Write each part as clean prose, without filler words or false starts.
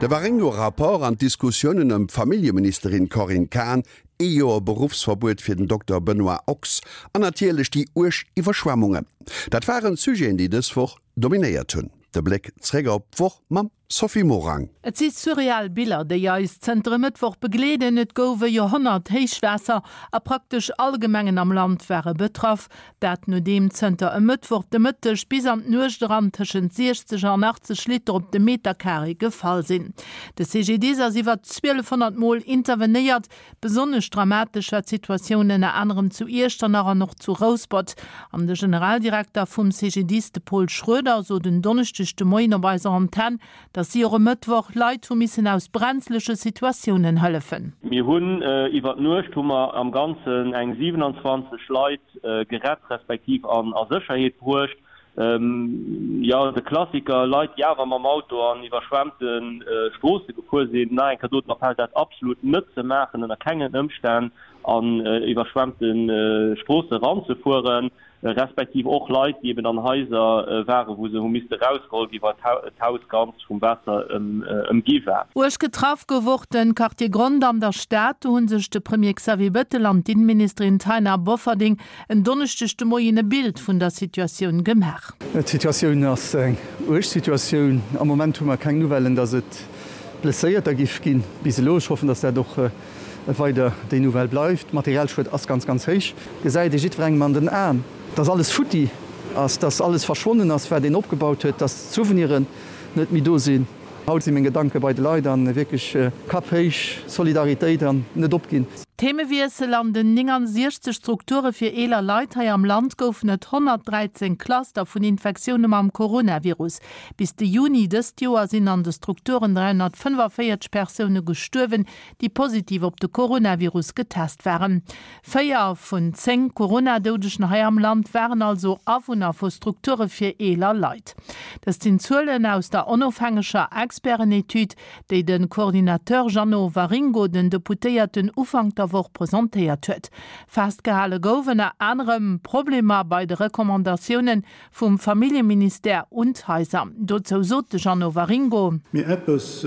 De Waringo-Rapport an d'Diskussiounen ëm d'Familljeministerin Corinne Cahen, ee Joer Beruffsverbuet fir den Dokter Benoît Ochs an natierlech déi uerg Iwwerschwemmungen, dat waren d'Sujeten, déi dës Woch dominéiert hunn. De Bléck zréck op d'Woch mam Sophie Morang. Et si surreal Biller, déi eis zënter e Mëttwoch begleeden. Et gouf e Joerhonnert-Héichwaasser a praktesch all Gemengen am Land ware betraff. Dat nodeem zënter e Mëttwoch de Mëtteg bis an d'Nuecht eran tëschent 60 an 80 Liter op de Meterkaree gefall sinn. De CGDIS ass iwwer 1.200 Mol intervenéiert. Besonnesch dramatesch war d'Situatioun ënner anerem zu Iechternach an och zu Rouspert. An de Generaldirekter vum CGDIS, de Paul Schroeder, sot en Donneschdeg de Moien op eiser Antenn, datt si och e Mëttwoch Leit hu missen aus brenzleche Situatiounen hëllefen. Mir hunn iwwer d'Nuecht hu mer am Ganzen eng 27 Leit gerett respektiv an a Sécherheet bruecht. Jo, de Klassiker, Leit déi awer mam Auto an iwwerschwemmte Stroosse gefuer sinn. Nach eng Kéier do den Appell, dat absolut net ze maachen, ënner kengen Ëmstänn an iwwerschwemmte Stroosse eranzefueren. Respektiv och Leit, déi eben an Haiser waren, wou se hu misste rausgeholl ginn, well d'Haus ganz vum Waasser ëmgi war. Uerg getraff gouf och de Quartier Grond an der Stad. Do hu sech de Premier Xavier Bettel an d'Inneministerin Taina Bofferding en Donneschdeg de Moien e Bild vun der Situatioun gemaach. D'Situatioun ass eng uerg Situatioun. Am Moment hu mer keng Nouvellen, datt et Blesséierter giff ginn bis elo. Ech hoffen, datt dat och weider déi Nouvelle bleift. Materialschued ass ganz, ganz héich. Gesäit ee jiddwerengem an den Aen, dass alles futti ass, dass alles verschwonnen ass, wat een opgebaut huet, dass d'Souveniren net méi do sinn. Haut si meng Gedanke bei de Leit an wierklech Kapp héich, Solidaritéit an net opginn. Themewiessel, An den 69 Strukture fir eeler Leit hei am Land goufen et 113 Cluster vun Infektioune mam Coronavirus. Bis de Juni dëst Joer sinn an de Strukturen 345 Persoune gestuerwen, déi positiv op de Coronavirus getest waren. 4 vun 10 Corona-Doudegen hei am Land waren also Awunner vu Strukture fir eeler Leit. Dëst sinn Zuelen aus der onofhängeger Experten-Etüd, déi de Coordinateur Jeannot Waringo den Deputéierten Ufank der Woch presentéiert huet. Festgehale gouf ënner anerem Problemer bei de Recommandatiounen Vum Familljeministère un d'Haiser. Dozou sot de Jeannot Waringo. Mee eppes,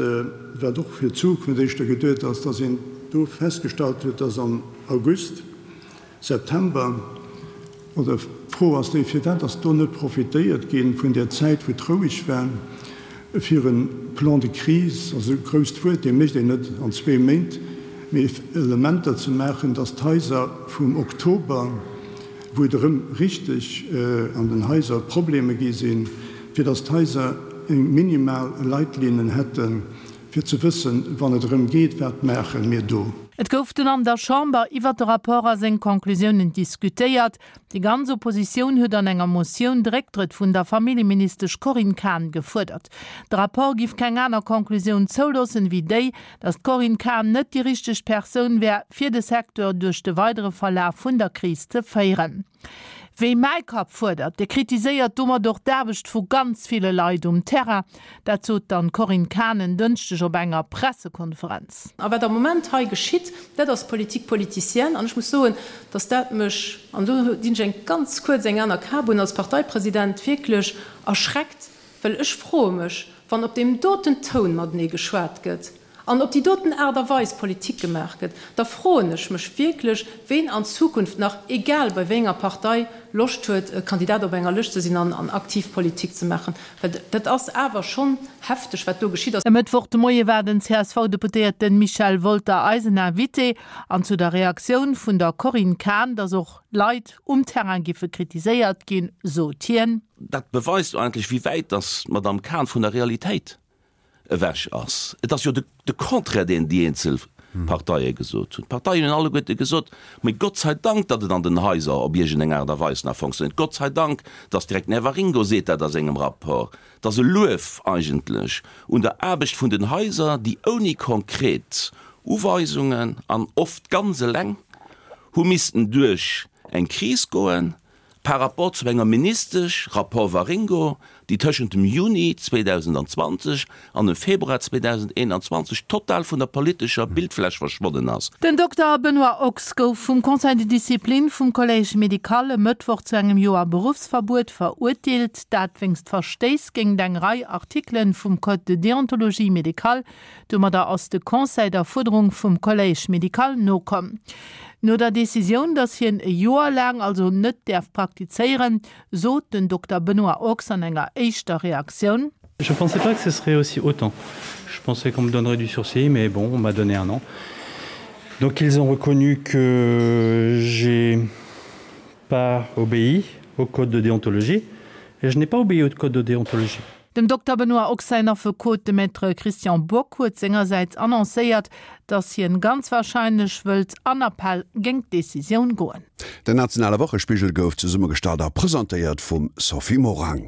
wat och fir d'Zukunft éischter geduet ass, dass een do festgestallt huet, dass am August, September, oder d'Fro ass déi, firwat ass do net profitéiert gi vun där Zäit, wou et roueg war, fir e Plan de crise, also e grousst Wuert, dee mécht een net an zwee Méint, mee Elementer ze maachen, dass d'Haiser vum Oktober, wou et erëm richteg an den Haiser Probleme gi sinn, fir datt d'Haiser eng minimal Leitlinnen hätten, fir ze wëssen, wann et erëm geet, wat maache mir do. Et gouf dunn an der Chamber iwwert de Rapport a seng Conclusiounen diskutéiert. Déi ganz Oppositioun huet an enger Motioun de Récktrëtt vun der Familljeministesch Corinne Cahen gefuerdert. De Rapport giff keng aner Conclusioun zouloossen, wéi déi, Datt d'Corinne Cahen net déi richteg Persoun wär, fir de Secteur duerch de weidere Verlaf vun der Kris ze féieren. Wie mäi Kapp fuerdert, dee kritiséiert domat och d'Aarbecht vu ganz ville Leit um Terrain. Dat sot dann d'Corinne Cahen en Dënschdeg op enger Pressekonferenz. A wat am Moment hei geschitt, dat ass Politique politicienne. An ech muss soen, datt dat mech, an do dinn ech eng ganz kuerz eng aner Kap un, als Parteipresident wierklech erschreckt, Well ech froe mech, wann op deem doten Toun matenee geschwat gëtt an op déi doten Aart a Weis Politik gemaach gëtt, da froen ech mech wierklech, ween an Zukunft nach, egal bei wéi enger Partei, Loscht huet, Kandidat op enger Lëscht ze sinn an aktiv Politik ze maachen. Well dat ass awer schonn hefteg, wat do geschitt ass. E Mëttwoch de Moie war den CSV-Deputéierte Michel Wolter eisen Invité. An zu der Reaktioun vun der Corinne Cahen, datt och Leit um Terrain giffe kritiséiert ginn, sot hien. Dat beweist eigentlech, wéi wäit datt d'Madame Cahen vun der Realitéit ewech ass. Et ass jo de Contraire, deen déi eenzel Parteie gesot hunn. D'Parteien hunn alleguerte gesot, Mee Gott sei Dank, datt et an den Haiser op iergendeng Aart a Weis nach fonctionnéiert. Gott sei Dank, datt direkt den Här Waringo seet dat a sengem Rapport, Et ass e Luef eigentlech un der Aarbecht vun den Haiser, déi ouni konkret Uweisungen an oft ganz eleng hu missten duerch eng Kris goen, par rapport zu enger Ministesch, Rapport Waringo, déi tëschent dem Juni 2020 an dem Februar 2021 total vun der politescher Bildfläch verschwonnen ass. Den Dokter Benoît Ochs gouf vum Conseil de discipline vum Collège médical e Mëttwoch zu engem Joer Beruffsverbuet verurteelt. Dat wéinst Verstéiss géingt eng Rei Artikelen vum Code de déontologie médicale. Domadder ass de Conseil der Fuerderung vum Collège médical nokomm. No der Decisioun, datt hien e Joer laang also net däerf praktizéieren, sot den Dokter Benoît Ochs an enger éischter Reaktioun. Je pensais pas que ce serait aussi autant. Je pensais qu'on me donnerait du sursis, mais bon, on m'a donné un an. Donc ils ont reconnu que j'ai pas obéi au code de déontologie et je n'ai pas obéi au code de déontologie. Dem Dokter Benoît Ochs säin Affekot, de Maître Christian Bock, huet sengersäits annoncéiert, datt hien ganz warscheinlech wëllt an Appell géingt d'Decisioun goen. Den nationale Wochespigel gouf zesummegestallt a presentéiert vum Sophie Morang.